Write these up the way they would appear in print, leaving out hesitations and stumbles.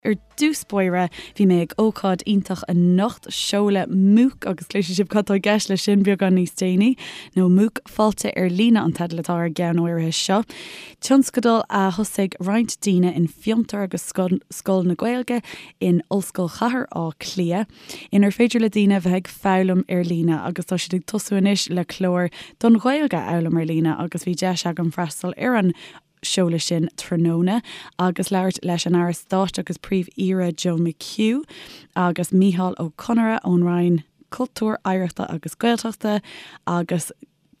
Ar dtús báire, bhí mé ag ócáid iontach anocht, seoladh MOOC, agus cloisfidh sibh cad tá i gceist leis sin beagán níos déanaí, nó MOOC Fáilte ar Líne an teideal atá ar an gceann áirithe seo. Tionscadal a thosaigh roinnt daoine in Fiontar agus Scoil na Gaeilge in Ollscoil Chathair Átha Cliath, inar féidir le daoine bheith ag foghlaim ar líne agus tá siad ag tosú anois le clár don Ghaeilge a fhoghlaim ar líne agus bhí deis agam freastal ar an seoladh sin tráthnóna agus labhairt leis an Aire Stáit agus Príomh-Aoire Joe McHugh agus Micheál Ó Conaire ón Roinn Cultúir, Oidhreachta agus Gaeltachta agus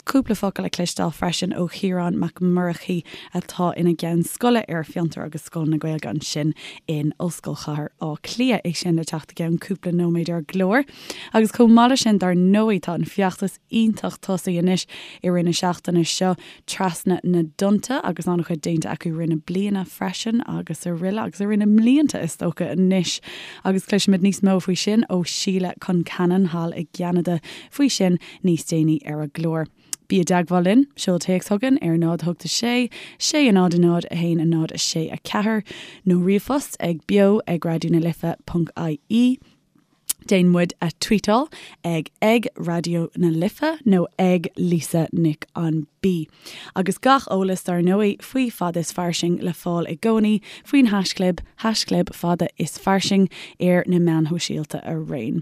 cúpla focal a chloisteáil freisin ó Chiarán Mac Murchaidh atá ina gceann scoile ar Fiontar agus Scoil na Gaeilge ansin in Ollscoil Chathair Átha Cliath. É sin le teacht i gceann cúpla nóiméad ar an gclár. Agus chomh maith leis sin dar ndóigh tá an feachtas iontach tosaithe anois i rith na seachtaine seo trasna na dtonnta agus an-chuid déanta acu i rith na bliana freisin agus araile agus i rith na mblianta is dócha anois agus cloisfimid níos mó faoi sin ó Sheila Concannon thall i gCeanada faoi sin níos déanaí ar an gclár. Bí i dteagmháil linn, seol téacs chugainn ar 0 8 6 6 0 0 1 0 6 4 nó ríomhphost ag beo ag raidió na life ponc ie. Déan muid a tweetáil ag ag Raidió na Life nó ag Lisa Nic an B. Agus gach eolas dar ndóigh faoi Fada is Fairsing le fáil i gcónaí faoin haischlib, haischlib Fada is Fairsing ar na meáin shóisialta araon.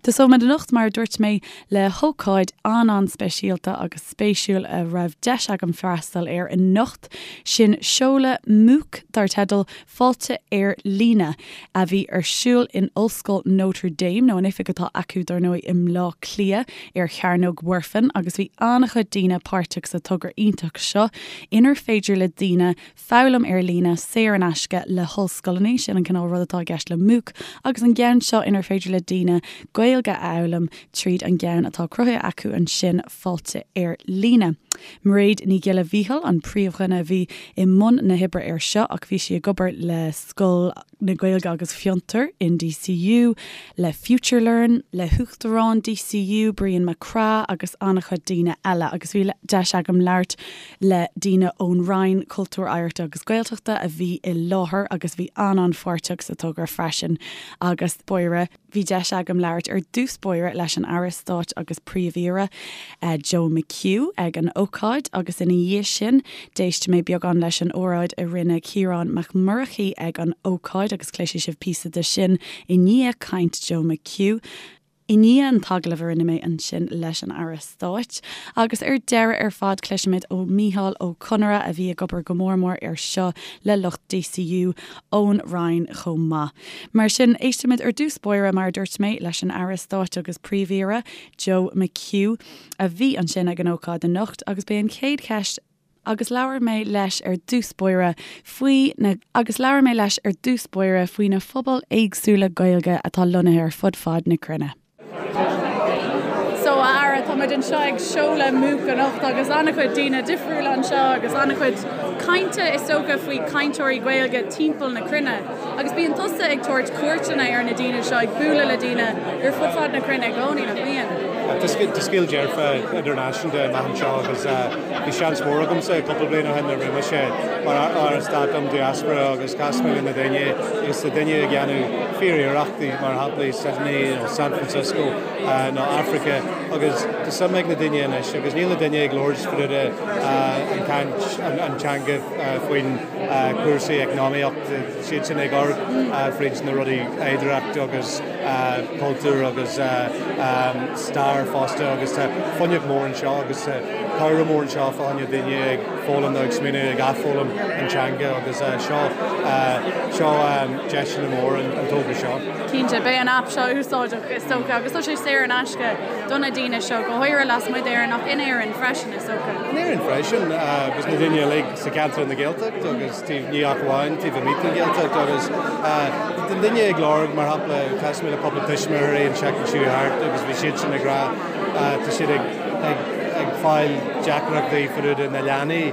Tosóimid anocht, mar a dúirt mé, le hócáid an-an-speisialta agus spéisiúil a raibh deis agam freastal air anocht, sin seoladh MOOC dar teideal Fáilte ar Líne, a bhí ar siúl in Ollscoil Notre Dame, nó an oifig atá acu dar ndóigh i mBleá Cliath ar Chearnóg Mhuirfean, agus bhí an-chuid daoine páirteach sa togra iontach seo inar féidir le daoine foghlaim ar líne saor in aisce le hollscoileanna, sin an cineál rud atá i gceist le MOOC, agus an gceann seo inar féidir le daoine Gaeilge a fhoghlaim tríd an gceann atá cruthaithe acu ansin, Fáilte ar Líne. Mairéad Ní Ghiolla Mhíchíl an príomhdhuine a bhí i mbun na hoibre air seo ach bhí sí ag obair le Scoil na Gaeilge agus Fiontar in DCU, le FutureLearn, le hUachtarán DCU, Brian Mac Craith agus an-chuid daoine eile agus bhí deis agam labhairt le daoine ón Roinn Cultúir, Oidhreachta agus Gaeltachta a bhí i láthair agus bhí an-an-pháirteach sa togra freisin agus báire. Bhí deis agam labhairt ar dtús báire leis an Aire Stáit agus Príomh-Aoire, Joe McHugh, ag an ócáid agus ina dhiaidh sin d'éist mé beagán leis an óráid a rinne Ciarán Mac Murchaidh ag an ócáid agus cloisfidh sibh píosa de sin i ndiaidh caint Joe McHugh. I ndiaidh an t-agallamh a rinne mé ansin leis an Aire Stáit. Agus ar deireadh ar fad cloisfimid ó Mhícheál Ó Conaire a bhí ag obair go mór mór air seo le lucht DCU ón Roinn chomh maith. Mar sin, éistfimid ar dtús báire, mar a dúirt mé, leis an Aire Stáit agus Príomh-Aoire, Joe McHugh, a bhí ansin ag an ócáid anocht agus b'é an chéad cheist agus labhair mé leis ar dtús báire faoi na agus labhair mé leis ar dtús báire faoi na phobail éagsúla Gaeilge atá lonnaithe ar fud fad na cruinne. So, a Aire, tá muid anseo ag seoladh MOOC anocht agus an-chuid daoine difriúla anseo agus an-chuid cainte is dócha faoi cainteoirí Gaeilge timpeall na cruinne. Agus bíonn tusa ag tabhairt cuairteanna ar na daoine seo, ag bualadh le daoine ar fud fad na cruinne i gcónaí, nach mbíonn? Tá scéal dearfa idirnáisiúnta amach anseo agus bhí seans mór agamsa cúpla bliain ó shin nuair a bhí mise mar Aire Stáit um Diaspora agus chas mé le na daoine agus tá daoine ag déanamh fíor-iarrachtaí mar shampla i Sydney nó San Francisco nó Africa agus tá suim ag na daoine anois agus níl na daoine ag labhairt fríd an caint an teanga faoin cúrsaí eacnamaíocht, siad sin ag amharc fríd na rudaí oidhreacht agus cultúr agus stair fosta agus tá fuinneamh mór anseo agus tá comhrá mór anseo fá choinne daoine ag foghlaim nó ag smaoineamh ag athfhoghlaim an teanga agus seo seo deiseanna mór an togra seo. Cinnte, beidh an aip seo úsáideach is dócha agus tá sé saor in aisce do na daoine seo, go háirithe lasmuigh d'Éirinn ach in Éirinn freisin is dócha. In Éirinn freisin agus na daoine uilig sa cheantar na Gaeltacht agus taobh ní ach amháin taobh amuigh den Ghaeltacht agus na daoine ag lorg mar shampla chas mé le cúpla tuismitheoirí an tseachtain seo thart agus bhí siad sin ag rá tá siad ag ag ag fáil deacrachtaí fríd na leanaí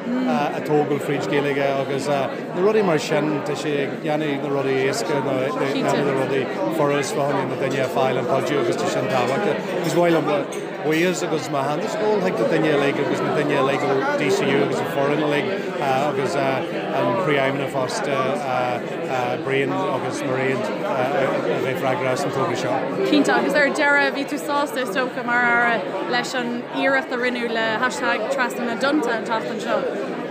a tógáil fríd Gaeilge agus na rudaí mar sin tá sé ag déanamh na rudaí éasca nó déanamh na rudaí furast fá choinne na daoine a fáil an cuidiú agus tá sin tábhachtach. Agus mhaith liom. buíochas agus m'aitheantas ag dul chuig na daoine uilig agus na daoine uilig ó DCU agus an foireann uilig agus an Príomhfheidhmeannach fosta, Brian agus Mairéad a bheith freagrach as an togra seo. Cinnte, agus ar deireadh, bhí tú sásta is dócha mar Aire leis an iarracht a rinneadh le hashtag Trasna na dTonnta an tseachtain seo?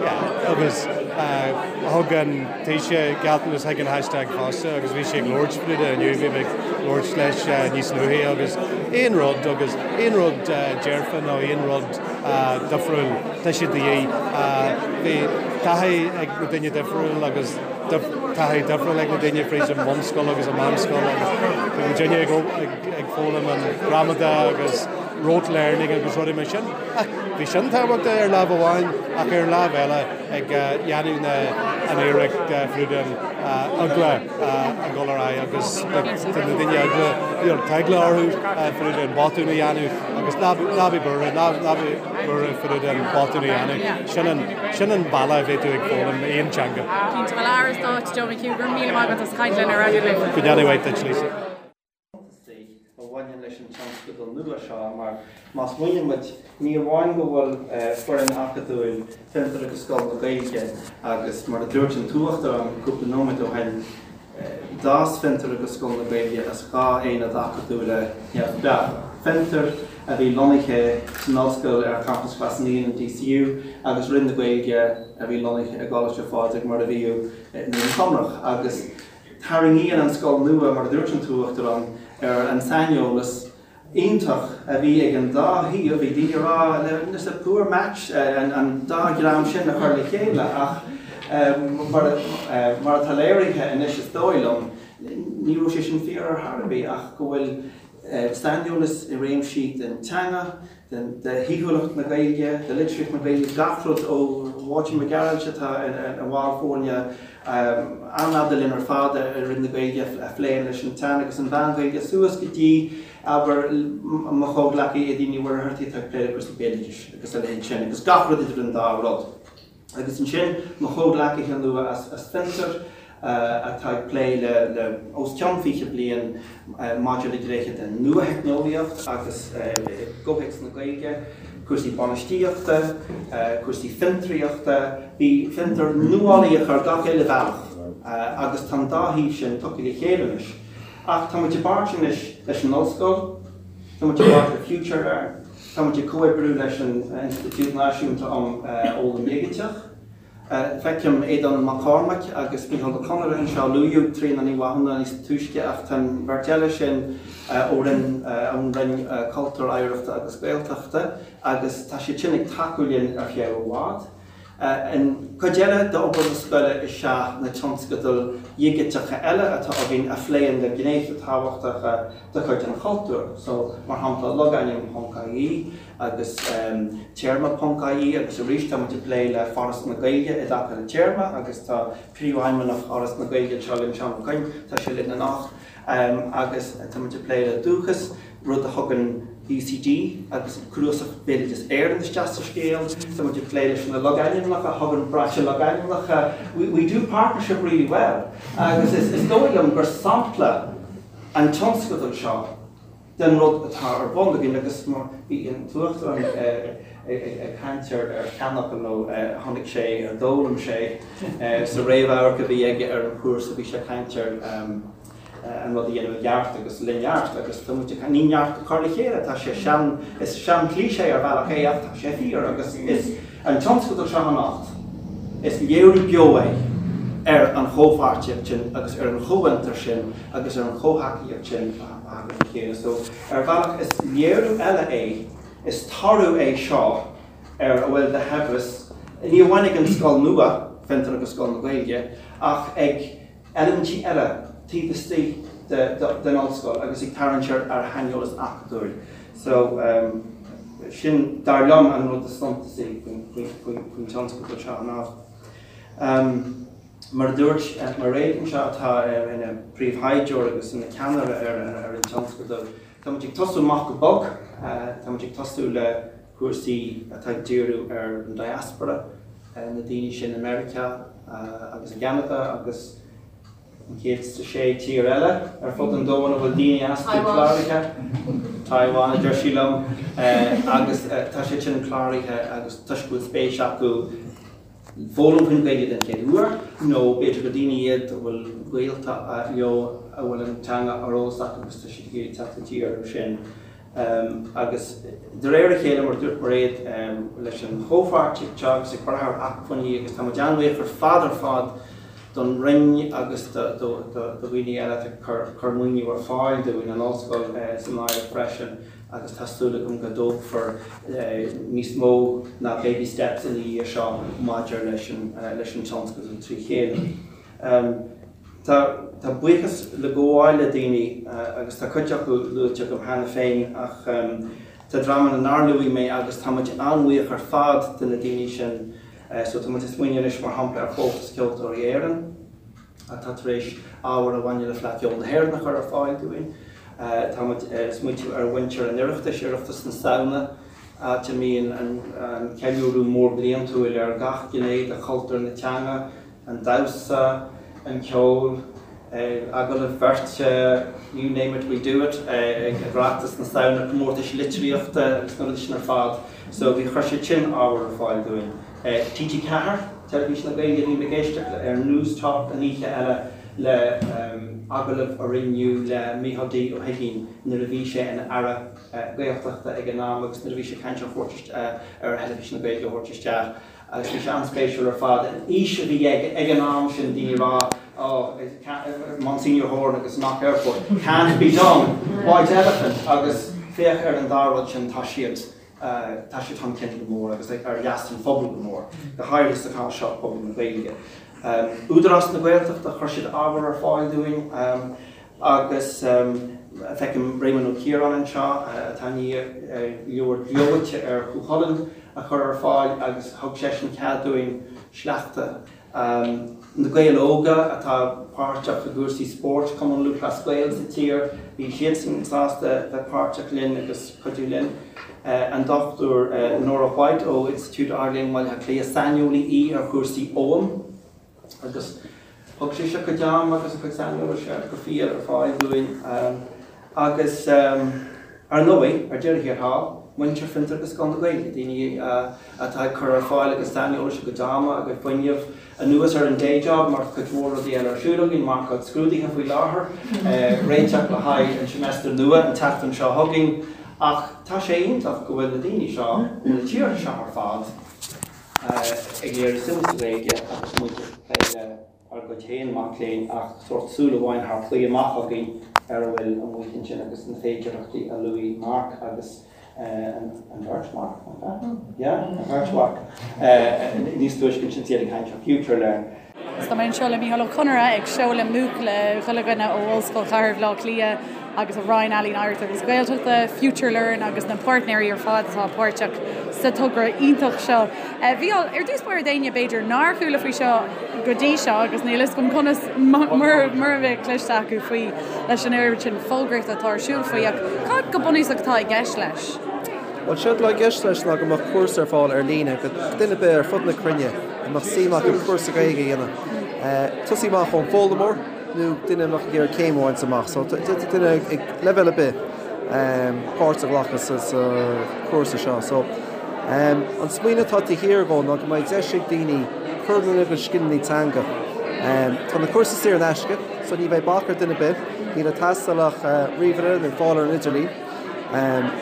Yeah, agus thug an Taoiseach gealltanas chuig an hashtag fosta agus bhí sé ag labhairt faoi inniu, bhí mé ag labhairt leis níos luaithe agus aon rud agus aon rud dearfa nó aon rud difriúil, tá sé de dhíth. Bhí taithí ag na daoine difriúil agus taithí difriúil ag na daoine fríd an mbunscoil agus an meánscoil agus bhí muidinne ag foghlaim an gramadach agus rote learning agus rudaí mar sin. Ach bhí sin tábhachtach ar lámh amháin ach ar an lámh eile ag dhéanamh na an iarracht fríd an eagla a dhul ar aghaidh agus tá na daoine eagla you know tá eagla orthu fríd an botún a dhéanamh agus ná ná bí buartha ná ná bí buartha fríd an botún a dhéanamh. Sin an sin an bealach a bheidh tú ag foghlaim aon teanga. Cinnte, bhuel Aire Stáit Joe McHugh, go raibh míle maith agat as caint linn ar Raidió na Life. Go ndéana mhaith duit Lisa. suntasaí a bhaineann leis an tionscadal nua seo mar má smaoiníonn muid, ní amháin go bhfuil foireann acadúil Fiontar agus Scoil na Gaeilge agus mar a dúirt an tUachtarán cúpla nóiméad ó shin, d'fhás Fiontar agus Scoil na Gaeilge as dhá aonad acadúla neamhspleácha, Fiontar a bhí lonnaithe san ollscoil ar champas Ghlas Naíon in DCU agus Roinn na Gaeilge a bhí lonnaithe i gColáiste Phádraig mar a bhíodh i nDún Chonrach agus Tarraingíonn an scoil nua, mar a dúirt an tUachtarán, ar an saineolas iontach a bhí ag an dá thaobh. Bhí daoine ag rá it's a poor match an dá dhream sin a chur le chéile ach mar atá léirithe anois is dóigh liom, ní raibh sé sin fíor ar chor ar bith ach go bhfuil saineolas i réimsí den teanga, de shaoithiúlacht na Gaeilge, de litríocht na Gaeilge, gach rud ó Mháirtín Mac Gearailt atá ina bhall foirne an-fhada linn ar fad i Roinn na Gaeilge a phléann leis an tSean agus an Mheán-Ghaeilge suas go dtí, abair, mo chomhghleacaí Aedín Ní Mhuircheartaigh atá ag plé le cúrsaí béaloidis agus a leithéid sin agus gach rud idir an dá rud. Agus ansin mo chomhghleacaithe nua as Fiontar atá ag plé le os cionn 20 bliain maidir le gnéithe den nuatheicneolaíocht agus i gcomhthéacs na Gaeilge, cúrsaí bainistíochta, cúrsaí fiontraíochta. Bhí Fiontar nuálaíoch ar gach uile bhealach agus tá an dá thaobh sin tugtha le chéile anois. Ach tá muid i bpáirt anois leis an ollscoil, tá muid i bpáirt le FutureLearn, Tá muid ag comhoibriú leis an Institiúid Náisiúnta um Fhoghlaim Dhigiteach. Feicim Aodán Mac Cormaic agus Micheál Ó Conaire anseo. Luaíodh Tríona Ní Mhathúna níos túisce ach tá an bheirt eile sin ó Roinn ón Roinn Cultúir, Oidhreachta agus Gaeltachta agus tá siad sin ag tacú linn ar feadh i bhfad. An chuid eile d'obair na scoile is ea na tionscadail dhigiteacha eile atá againn a phléann le gnéithe tábhachtacha de chuid an chultúir, so mar shampla logainm ponc ie agus téarma ponc ie agus arís tá muid ag plé le Foras na Gaeilge i dtaca le téarma agus tá Príomhfheidhmeannach Fhoras na Gaeilge anseo linn, Seán Ó Coinn, tá sé linn anocht agus tá muid ag plé le Dúchas. rud a thugann UCD agus Cnuasach Bhéaloideas Éireann isteach sa scéal. Tá muid ag plé leis na logainmneacha, a thugann Brainse Logainmneacha. We, we do partnership really well. Agus is, is dóigh liom gur sampla an tionscadal seo den rud atá ar bun againn agus mar bhí an tUachtarán ag caint ar ar sheanfhocal nó chonaic sé, ar d'fhoghlaim sé sa réamhamharc a bhí aige ar an chúrsa, bhí sé ag caint ar an rud a dhéanamh i gceart agus le neart agus tá muid ag, ní neart a chur le chéile, tá sé sean, is sean-cliché ar bhealach é ach tá sé fíor agus is an tionscadal seo anocht, is léiriú beo é ar an chomhpháirtíocht sin agus ar an chomhfhiontar sin agus ar an chomhthacaíocht sin a thagann le chéile. So ar bhealach is léiriú eile é, is toradh é seo ar a bhfuil de shaibhreas, ní amháin ag an scoil nua, Fiontar agus Scoil na Gaeilge, ach ag eilimintí eile taobh istigh den ollscoil agus ag tarraingt ar shaineolas acadúil. So, sin, dar liom, an rud is suntasaí faoin tionscadal seo anocht. Mar a dúirt Mairéad anseo, atá ina príomhthaighdeoir agus ina ceannaire ar an tionscadal, tá muid ag tosú amach go bog, tá muid ag tosú le cúrsaí atá ag díriú ar an diaspora, na daoine sin i Meiriceá agus i gCeanada agus An 106 tír eile ar fud an domhain a bhfuil daoine astu cláraithe. Taiwan, a deir sí liom. Agus tá siad sin cláraithe agus toisc go bhfuil spéis acu foghlaim faoin Ghaeilge den chéad uair, nó b'fhéidir gur daoine iad a bhfuil gaolta leo a bhfuil an teanga ar eolas acu agus tá siad ag iarraidh teacht i dtír orthu sin. Agus de réir a chéile, mar a dúirt Mairéad, leis an chomhpháirtíocht seo agus ag brath ar acmhainní, agus tá muid an-bhuíoch ar fad ar fad don Roinn agus do dhaoine eile atá ag cur maoiniú ar fáil dúinn, an Ollscoil san áireamh freisin, agus tá súil agam go dtógfar níos mó ná baby steps ina dhiaidh seo maidir leis an tionscadal trí chéile. Tá buíochas le gabháil le daoine, agus tá cuid acu luaite agam cheana féin, ach tá dreamanna nár luaigh mé agus tá muid an-bhuíoch ar fad de na daoine sin. So tá muid ag smaoineamh anois mar shampla ar Chomhaltas Ceoltóirí Éireann atá tar éis ábhar a bhaineann le Fleadh Cheoil na hÉireann a chur ar fáil dúinn. Tá muid ag smaointiú ar mhuintir an Oireachtais, Oireachtas na Samhna, áit a mbíonn an ceiliúradh mór bliantúil ar gach gné de chultúr na teanga, an damhsa, an ceol, agallaimh bheirte, you name it, we do it, ag Oireachtas na Samhna, comórtais litríochta agus na rudaí sin ar fad. So bhí, chuir siad sin ábhar ar fáil dúinn. TG4, Teilifís na Gaeilge, bhí mé ag éisteacht ar Newstalk an oíche eile le agallamh a rinneadh le Micheál D Ó hUiginn nuair a bhí sé ina Aire Gaeltachta ag an am agus nuair a bhí sé ag caint ar thabhairt ar Theilifís na Gaeilge a thabhairt isteach. Agus bhí sé an-spéisiúil ar fad, an fhís a bhí aige ag an am sin, daoine ag rá, oh, Monsignor Horan agus Knock Airport, can't be done, white elephant, agus féach ar an dá rud sin, tá siad, tá siad chun cinn go mór agus ar leas an phobail go mór, go háirithe sa chás seo, pobal na Gaeilge. Údarás na Gaeltachta, chuir siad ábhar ar fáil dúinn. Agus feicim Réamonn Ó Ciaráin anseo, atá i ndiaidh leabhar gleoite ar Chú Chulainn a chur ar fáil agus thug seisean cead dúinn sleachta. Na Gaeil Óga atá páirteach i gcúrsaí spóirt, Cumann Lúthchleas Gael sa tír, bhí siadsan sásta bheith páirteach linn agus cuidiú linn. An Dr Nora White ó Institiúid Ard-Léinn Bhaile Átha Cliath, saineolaí í ar chúrsaí Oghaim. Agus thug sise a cuid ama agus a cuid saineolais go fial ar fáil dúinn. Agus ar ndóigh, ar deireadh thiar thall, muintir Fiontar agus Scoil na Gaeilge, daoine atá ag cur ar fáil a gcuid saineolais, a gcuid ama, a gcuid fuinnimh, anuas ar an day job, mar tá cuid mhór rudaí eile ar siúl againn, marcáil scrúduithe faoi láthair, réiteach le haghaidh an seimeastar nua an tseachtain seo chugainn. Ach tá sé iontach go bhfuil na daoine seo ó na tíortha seo ar fad, ag léiriú suim sa Ghaeilge agus muid ag plé le ár gcuid féin mac léinn ach sórt súil amháin thar claí amach againn ar a bhfuil amuigh ansin agus na féidearthachtaí a luaigh Mark agus an bheirt Mharc, nach ea? Yeah, an bheirt Mharc níos túisce ansin is iad ag caint ar FutureLearn. Tá mé anseo le Mícheál Ó Conaire ag seoladh MOOC le chuile dhuine ó Ollscoil Chathair Bhaile Átha Cliath agus an Roinn Ealaíon Oidhreachta agus Gaeltachta, FutureLearn agus na páirtnéirí ar fad atá páirteach sa togra iontach seo. Mhícheál, ar dtús báire d'éinne b'fhéidir nár chuala faoi seo go dtí seo agus níl fhios agam conas mura mbeadh cloiste acu faoi leis an oiread sin fógraíochta atá ar siúl faoi ach cad go bunúsach atá i gceist leis? Bhuel, séard atá i gceist leis ná go mbeadh cúrsa ar fáil ar líne go duine ar bith ar fud na cruinne a mbeadh suim acu cúrsa Gaeilge a dhéanamh. Tosaí amach ón bhfoghlaimeoir nó duine a mbeadh ag iarraidh céim a bhaint amach. So d'fhéadfadh duine ag leibhéal ar bith páirt a ghlacadh sa chúrsa seo. So an smaoineamh atá taobh thiar dhó ná go mbeidh deis ag daoine cur lena gcuid scileanna teanga. Tá na cúrsaí saor in aisce, so ní bheidh bac ar duine ar bith. Níl ag teastáil ach ríomhaire nó fáil ar an idirlíon.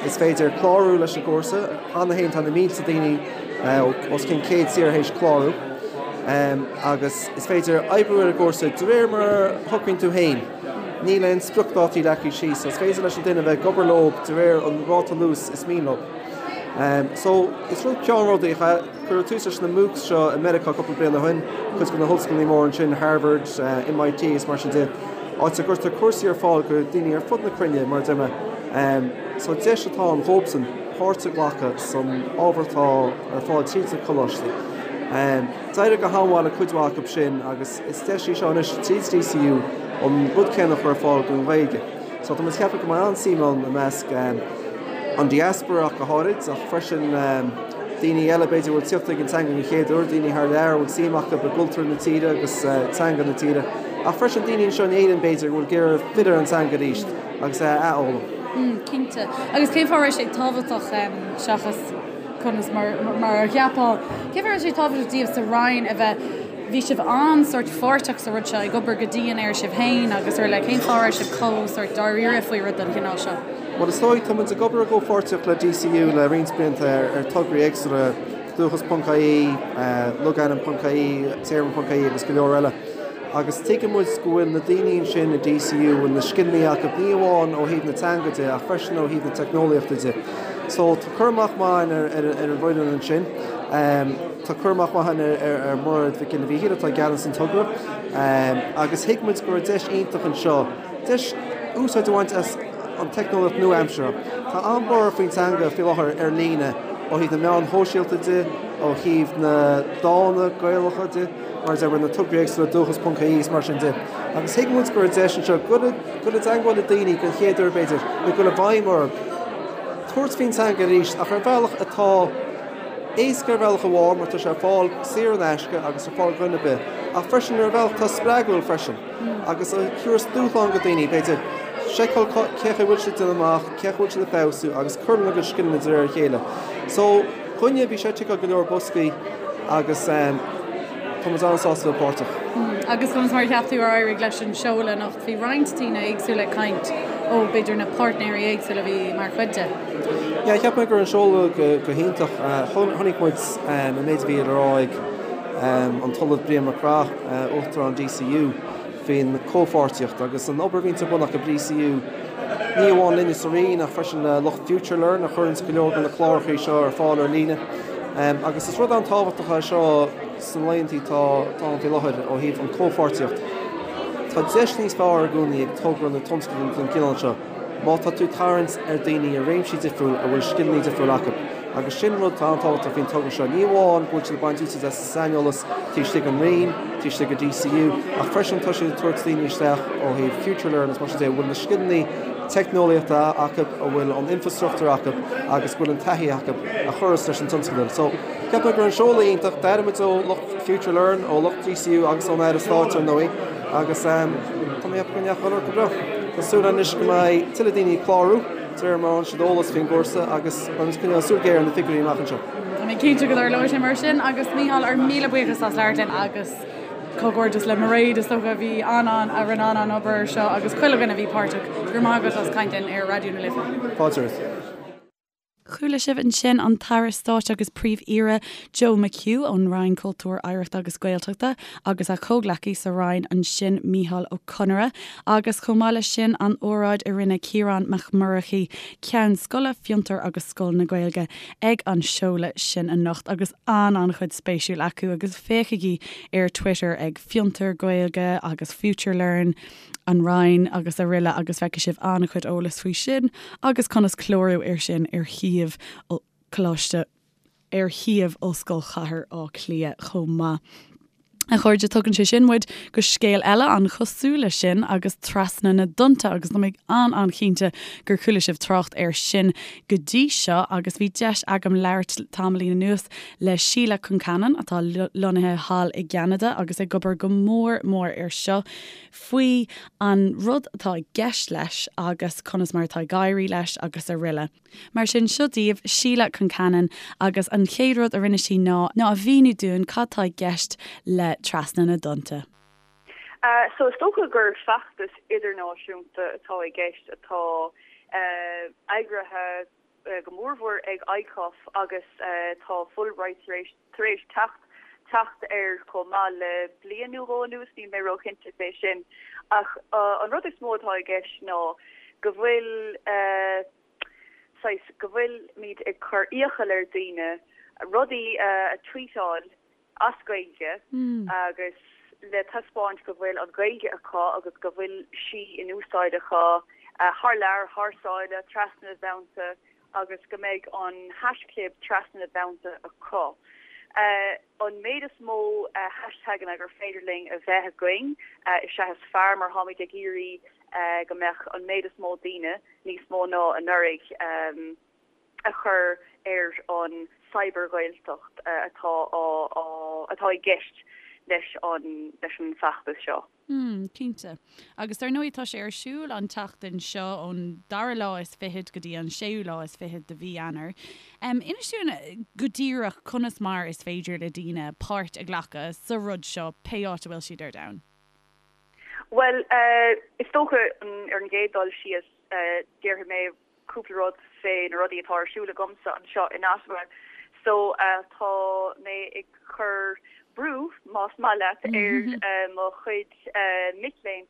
Is féidir clárú leis an gcúrsa. Cheana féin tá na mílte daoine ó os cionn 100 tír théis clárú agus is féidir oibriú ar an gcúrsa de réir mar a shocraíonn tú féin. Níl aon spriocdhátaí leagtha síos so is féidir leis an duine bheith ag obair leo de réir an ráta luais is mian leo. So is rud ceannródaíoch é. Cuireadh tús leis na MOOCs seo i Meiriceá cúpla bliain ó shin, cuid de na hollscoileanna móra ansin, Harvard, MIT is mar sin de. áit a gcuirtear cúrsaí ar fáil go daoine ar fud na cruinne, mar a deir mé. So deis atá ann dhóibhsan páirt a ghlacadh san ábhar atá ar fáil tríd na coláistí. D'éirigh go han-mhaith le cuid mhaith acu sin agus is deis í seo anois tríd DCU an rud céanna a chur ar fáil don Ghaeilge. So tá muid ag ceapadh go mbeidh an-suim ann i measc an diaspora ach go háirid ach freisin daoine eile b'fhéidir a bhfuil ag tíocht ag an teanga den chéad uair, daoine thar lear a bhfuil suim acu i gcultúr na tíre agus teanga na tíre. Ach freisin daoine anseo in Éirinn b'fhéidir go bhfuil ag iarraidh filleadh ar an teanga arís agus é a athfhoghlaim. Cinnte. Agus cén fáth a raibh sé tábhachtach seachas conas mar mar a cheapfá, cén fáth a raibh sé tábhachtach daoibh sa Roinn a bheith, bhí sibh an-sórt pháirteach sa rud seo, ag obair go dian air sibh féin agus araile, cén fáth a raibh sibh chomh sórt dáiríre faoi rud den chineál seo? Bhuel is dóigh, tá muid ag obair i gcomhpháirtíocht le DCU le roinnt blianta ar tograí éagsúla, Dúchas ponc ie, Logainm ponc ie, Téarma ponc ie agus go leor eile. Agus tuigeann muid go bhfuil na daoine ansin i DCU, bhfuil na scileanna acu, ní amháin ó thaobh na teanga de ach freisin ó thaobh na teicneolaíochta de. So tá cur amach maith againn ar an bhfoireann ansin. Tá cur amach maith againn ar Mhairéad Mhic Giolla Mhíchíl atá i gceannas an togra. Agus thuig muid go raibh deis iontach anseo, deis úsáid a bhaint as an teicneolaíocht nua-aimseartha. Tá an-bhorradh faoin teanga faoi láthair ar líne ó thaobh na meáin shóisialta de, ó thaobh na dánta Gaelacha de, mar a deir na tograí éagsúla Dúchas ponc ie is mar sin de. Agus thuig muid go raibh deis anseo dul i dteagmháil le daoine den chéad uair b'fhéidir, nó dul i bhfeidhm orthu, tabhairt faoin teanga arís ach ar bhealach atá éasca ar bhealach amháin mar tá sé ar fáil saor in aisce agus ar fáil do dhuine ar bith, ach freisin ar bhealach atá spreagúil freisin agus a thabharfas dúshlán do dhaoine, b'fhéidir, seiceáil cén chaoi a bhfuil siad ag déanamh amach, cén chaoi a bhfuil siad ag feabhsú agus cur lena gcuid scileanna de réir a chéile. So, dhúinne, bhí sé ag ticeáil go leor boscaí agus tá muid an-sásta a bheith páirteach. Agus conas mar a cheap tú ar éirigh leis an seoladh anocht? Bhí roinnt daoine éagsúla ag caint ó b'fhéidir na páirtnéirí éagsúla a bhí mar chuid de. Yeah, cheap mé go raibh an seoladh go hiontach. Chonaic muid an méid a bhí le rá ag an tOllamh Brian Mac Craith, Uachtarán DCU, faoin chomhpháirtíocht agus an obair a bhíonns ar bun acu DCU, ní amháin linne sa Roinn ach freisin le lucht FutureLearn a chuireanns go leor de na cláracha seo ar fáil ar líne. Agus is rud an-tábhachtach é seo sna laethanta atá ann faoi láthair ó thaobh an chomhpháirtíocht. Tá deis níos fearr i gcónaí ag togra nó tionscadal den chineál seo má tá tú ag tarraingt ar daoine i réimsí difriúil a bhfuil scileanna difriúil acu. Agus sin rud atá an-tábhachtach faoin togra seo, ní amháin go bhfuil siad ag baint úsáid as an saineolas taobh istigh den Roinn, taobh istigh de DCU, ach freisin tá siad ag tabhairt daoine isteach ó thaobh FutureLearn is mar sin de, a bhfuil na scileanna teicneolaíochta acu, a bhfuil an infrastruchtúr acu agus go bhfuil an taithí acu a chuireas leis an tionscadal. So, cheap mé go raibh an seoladh iontach, d'airigh muid ó lucht FutureLearn, ó lucht DCU agus ón Aire Stáit ar ndóigh, agus tá mé ag ceapadh go ndeachaigh an rud go breá. Tá súil anois go mbeidh tuilleadh daoine ag clárú. De réir mar a fhaigheann siad eolas faoin gcúrsa agus beidh muid ag coinneáil súil ghéar ar na figiúirí amach anseo. Tá mé cinnte go dtarlóidh sé mar sin agus Mícheál, ár míle buíochas as labhairt linn agus comhghairdeas le Mairéad is dócha a bhí an-an a rinne an-an obair air seo agus chuile dhuine a bhí páirteach. Go raibh maith agat as caint linn ar Raidió na Life. Fáilte romhat. Chuala sibh ansin an tAire Stáit agus Príomh-Aoire Joe McHugh ón Roinn Cultúir, Oidhreachta agus Gaeltachta agus a chomhghleacaí sa Roinn ansin Mícheál Ó Conaire agus chomh maith leis sin an óráid a rinne Ciarán Mac Murchaidh, Ceann Scoile, Fiontar agus Scoil na Gaeilge ag an seoladh sin anocht agus an-an-chuid spéisiúil acu agus féachaigí ar Twitter ag Fiontar Gaeilge agus FutureLearn. an Roinn agus araile agus feicfidh sibh an-chuid eolais faoi sin agus conas clárú air sin ar shuíomh Coláiste ar shuíomh Ollscoil Chathair Átha Cliath chomh maith. A chairde, tugann sé sin muid go scéal eile an-chosúil leis sin agus Trasna na dTonnta agus tá mé an-an-chinnte gur chuala sibh trácht air sin go dtí seo agus bhí deis agam labhairt tamaillín anuas le Síle Concannon atá lonnaithe thall i gCeanada agus ag obair go mór mór air seo. faoi an rud atá i gceist leis agus conas mar atá ag éirí leis agus araile. Mar sin, seo daoibh Síle Concannon agus an chéad rud a rinne sí ná ná a mhíniú dúinn cad tá i gceist le Trasna na dTonnta. So is dócha gur feachtas idirnáisiúnta atá i gceist atá eagraithe go mórmhór ag ICOF agus tá Fulbright tar éis tar éis teacht teacht air chomh maith le bliain nó dhó anuas, níl mé róchinnte fé sin. Ach an rud is mó atá i gceist ná go bhfuil saghas go bhfuilimid ag cur iachall ar daoine rudaí a tweetáil as Gaeilge agus le taispeáint go bhfuil an Ghaeilge acu agus go bhfuil sí in úsáid acu thar lear, thar sáile, trasna na dtonnta agus go mbeidh an haischlib trasna na dtonnta acu. An méid is mó hashtaganna gur féidir linn a bheith againn is ea is fearr mar táimid ag iarraidh go mbeadh an méid is mó daoine, níos mó ná anuraidh, a chur ar an cyber-Ghaeltacht atá á atá i gceist leis an leis an bhfeachtas seo. Mm, cinnte. Agus dar ndóigh tá sé ar siúl an tseachtain seo ón dara lá is fichead go dtí an séú lá is fichead de mhí Eanáir. Inis dúinn go díreach conas mar is féidir le daoine páirt a ghlacadh sa rud seo pé áit a bhfuil siad ar domhan. Bhuel, is dócha ar an gcéad dul síos déarfaidh mé cúpla rud fé na rudaí atá ar siúl agamsa anseo in Ottawa. So tá mé ag cur brú, más maith leat, ar mo chuid mic léinn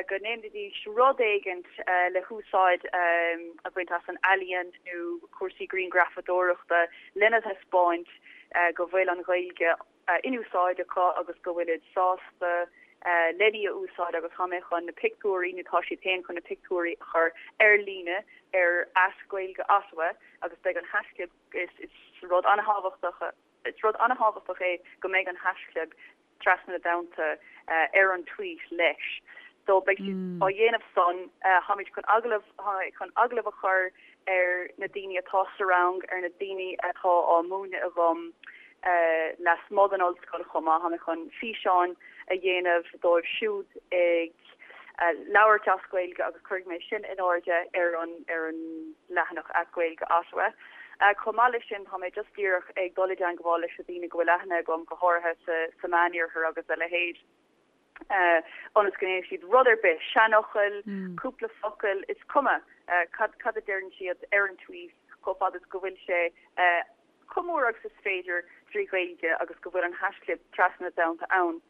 go ndéanfaidís rud éigint le húsáid a bhaint as an ealaíon nó cúrsaí grianghrafadóireachta lena thaispeáint go bhfuil an Ghaeilge in úsáid acu agus go bhfuilid sásta len í a úsáid agus tá mé chun na pictiúirí, nó tá siad féin chun na pictiúirí a chur ar líne ar @GaeilgeOttawa agus beidh an haischlib, is rud an-thábhachtach, is rud an-thábhachtach é go mbeidh an haischlib trasna na dtonnta ar an tweet leis. So beidh siad á dhéanamh san, táimid chun agallamh, chun agallamh a chur ar na daoine atá sa rang, ar na daoine atá á múineadh agam lasmuigh den ollscoil chomh maith. Tá mé chun físeáin a dhéanamh dóibh siúd ag labhairt as Gaeilge agus cuirfidh mé sin in airde ar an ar an leathanach @GaeilgeOttawa. Chomh maith leis sin, tá mé just díreach ag dul i dteangmháil leis na daoine go bhfuil aithne agam, go háirithe sa sa Meániarthar agus a leithéid. ionas go ndéanfaidh siad rud ar bith, seanfhocail, cúpla focal, is cuma cad cad a deireann siad ar an tweet chomh fada is go bhfuil sé chomh mór agus is féidir trí Ghaeilge agus go bhfuil an haischlib trasna na dtonnta ann.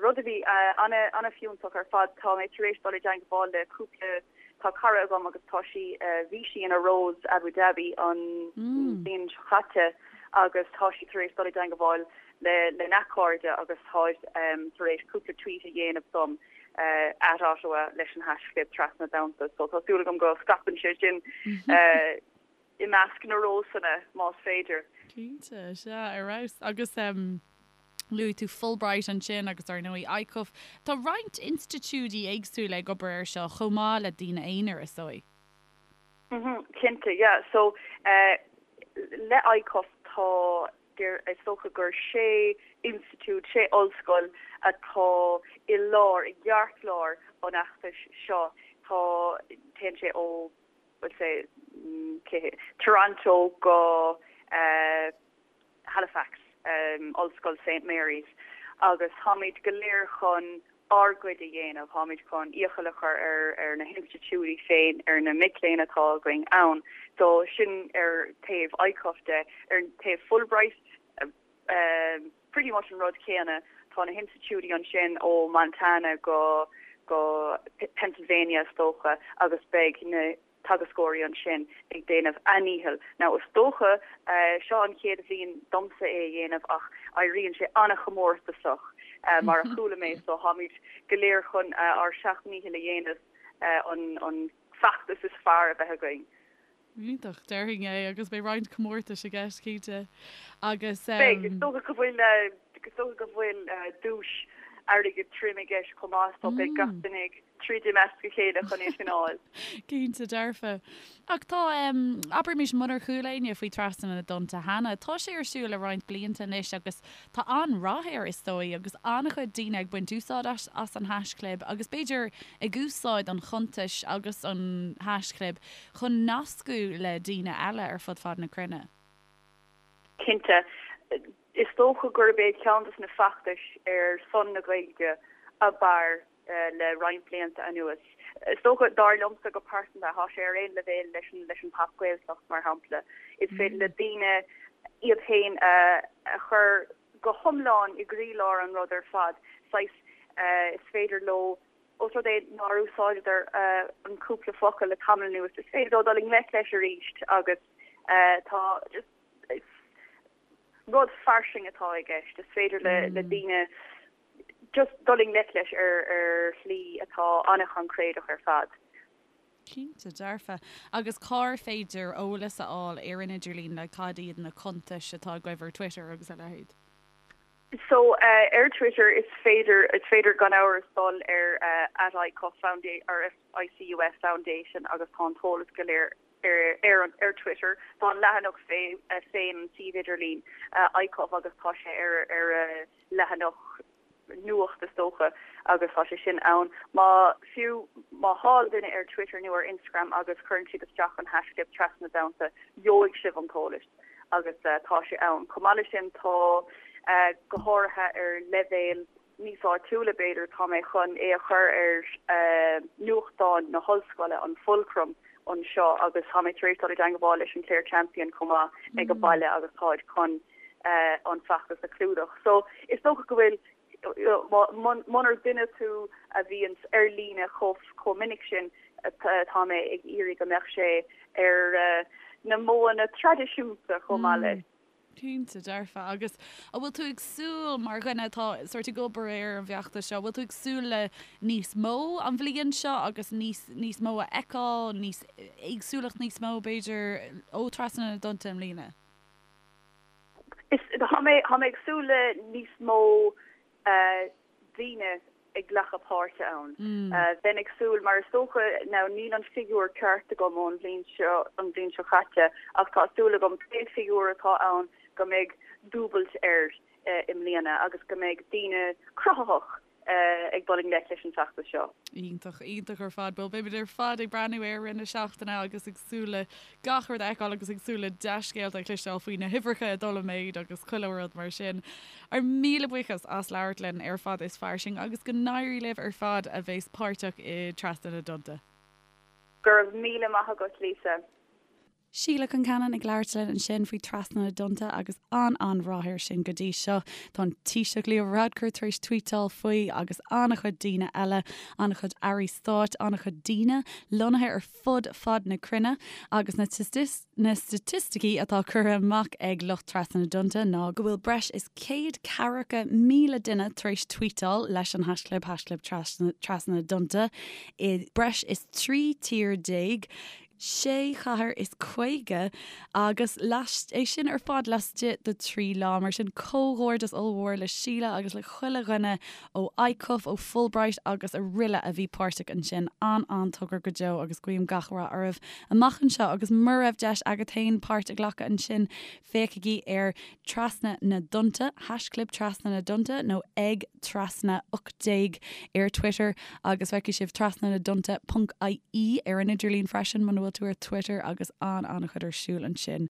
Rud a bhí an-fhiúntach ar fad, tá mé tar éis dul i dteangmháil le cúpla, tá cara agam agus tá sí, bhí sí ina Rose Abu Dhabi an bhliain seo caite agus tá sí tar éis dul i dteangmháil lena cairde agus táid tar éis cúpla tweet a dhéanamh dom @Ottawa leis an haischlib trasna na dtonnta so tá súil agam go scaipeann sé sin i measc na Rósanna más féidir. Cinnte, sea, ar fheabhas. Agus luaigh tú Fulbright ansin agus ar ndóigh ICUF. Tá roinnt institiúidí éagsúla ag obair air seo chomh maith le daoine aonair, is dóigh. Cinnte, yeah. So le ICUF tá Is dócha gur sé institiúid, sé ollscoil atá i lár, i gceartlár an fheachtais seo. Tá, téann sé ó, we'll say, Toronto go Halifax, Ollscoil Saint Mary's, agus táimid go léir chun ár gcuid a dhéanamh. Táimid chun iachall a chur ar ar na hinstitiúidí féin, ar na mic léinn atá againn ann. So sin ar taobh ICUF de. Ar taobh Fulbright, pretty much an rud céanna. Tá na hinstitiúidí ansin ó Montana go go Pennsylvania is dócha agus beidh na teagascóirí ansin ag déanamh a ndícheall. Now is dócha, seo an chéad bhliain domsa é a dhéanamh ach éiríonn sé an-chomórtasach mar a chuala mé so táimid go léir chun ár seacht ndícheall a dhéanamh an feachtas is fearr a bheith againn. Iontach, déarfainn é agus beidh roinnt comórtais i gceist cinnte agus. Beidh, is dócha go bhfuil, is dócha go bhfuil duais airgid tirim i gceist chomh maith so beidh gach duine ag troid i measc a chéile chun é sin a fháil. Cinnte dearfa. Ach tá, abraimis, munar chuala éinne faoi Trasna na dTonnta cheana, tá sé ar siúl le roinnt blianta anois agus tá an-rath air is dóigh agus an-chuid daoine ag baint úsáid as an haischlib agus b'fhéidir ag úsáid an chuntais agus an haischlib chun nascadh le daoine eile ar fud fad na cruinne. Cinnte. Is dócha gurb é ceann de na feachtais ar son na Gaeilge ab fhearr le roinnt blianta anuas. Is dócha, dar liomsa go pearsanta, tá sé ar aon leibhéal leis an leis an Pop Gaeltacht, mar shampla. Is féidir le daoine iad féin a chur go hiomlán i gcroílár an rud ar fad. Saghas, is féidir leo, ós rud é nár úsáideadar an cúpla focal le tamall anuas, is féidir leo dul i ngleic leis arís agus tá just, is rud fairsing atá i gceist. Is féidir le daoine just dul i ngleic leis ar ar shlí atá an-choincréideach ar fad. Cinnte, dearfa. Agus cár féidir eolas a fháil ar an idirlíon, like cad iad na cuntais atá agaibh ar Twitter agus a leithéid? So ar Twitter is féidir, is féidir gan amhras dul ar @ICUF Foundation or ICUF Foundation agus tá an t-eolas go léir ar an ar Twitter. Tá an leathanach féin, an suíomh idirlín ICUF agus tá sé ar ar a leathanach. Nuacht is dócha agus tá sé sin ann. Má, fiú má thá duine ar Twitter nó ar Instagram agus cuireann siad isteach an haischlib Trasna na dTonnta, gheobhaidh sibh an t-eolas agus tá sé ann. Chomh maith leis sin tá, go háirithe ar leibhéal níos áitiúla b'fhéidir, tá mé chun é a chur ar nuachtán na hollscoile, an Fulcrum, anseo agus tá mé tar éis dul i dteangmháil leis an Clare Champion chomh maith ag an baile agus táid chun an feachtas a chlúdach. So is dócha go bhfuil, munar duine tú a bhíonns ar líne chomh minic sin, tá mé ag iarraidh go mbeadh sé ar na modhanna traidisiúnta chomh maith leis. Cinnte, dearfa. Agus an bhfuil tú ag súil, mar dhuine atá sórt ag obair ar an bhfeachtas seo, an bhfuil tú ag súil le níos mó an bhliain seo agus níos, níos mó a fheiceáil, níos, éagsúlacht níos mó b'fhéidir ó Trasna na dTonnta i mbliana? Is, tá mé, tá mé ag súil le níos mó daoine ag glacadh páirte ann. Bheinn ag súil, mar is dócha, now níl an figiúr ceart agam ón bhliain seo, an bhliain seo caite, ach tá súil agam pé figiúr atá ann go mbeidh dúbailt air i mbliana agus go mbeidh daoine cruthaitheach ag dul i ngleic leis an bhfeachtas seo. Iontach, iontach ar fad. Bhuel, beimid ar fad ag breathnú air i rith na seachtaine agus ag súil le gach rud a fheiceáil agus ag súil le dea-scéalta a chloisteáil faoi na huimhreacha ag dul i méid agus chuile rud mar sin. Ár míle buíochas as labhairt linn ar Fada is Fairsing agus go n-éirí libh ar fad a bheas páirteach i Trasna na dTonnta. Go raibh míle maith agat, Lisa. Síle Concannon ag labhairt linn ansin faoi Trasna na dTonnta agus an-an-rath air sin go dtí seo. Tá an Taoiseach Leo Varadkar tar éis tvuíteáil faoi agus an-chuid daoine eile, an-chuid airí stáit, an-chuid daoine lonnaithe ar fud fad na cruinne agus na na staitisticí atá curtha amach ag lucht Trasna na dTonnta ná go bhfuil breis is 140,000 duine tar éis tvuíteáil leis an haischlib, haischlib Trasna na dTonnta i breis is 13 tír. 6 chathair is 50 agus é sin ar fad laistigh de 3 lá. Mar sin, comhghairdeas ollmhór le Síle agus le chuile dhuine ó ICUF, ó Fulbright agus aroile a bhí páirteach ansin. An-an-togra go deo agus guím gach rath oraibh amach anseo agus mura raibh deis agat féin páirt a ghlacadh ansin, féachaigí ar Trasna na dTonnta, haischlib Trasna na dTonnta nó ag Trasna 18 ar Twitter agus feicfidh sibh Trasna na dTonnta ponc IE ar an idirlíon freisin muna bhfuil tú ar Twitter agus an-an-chuid ar siúl ansin.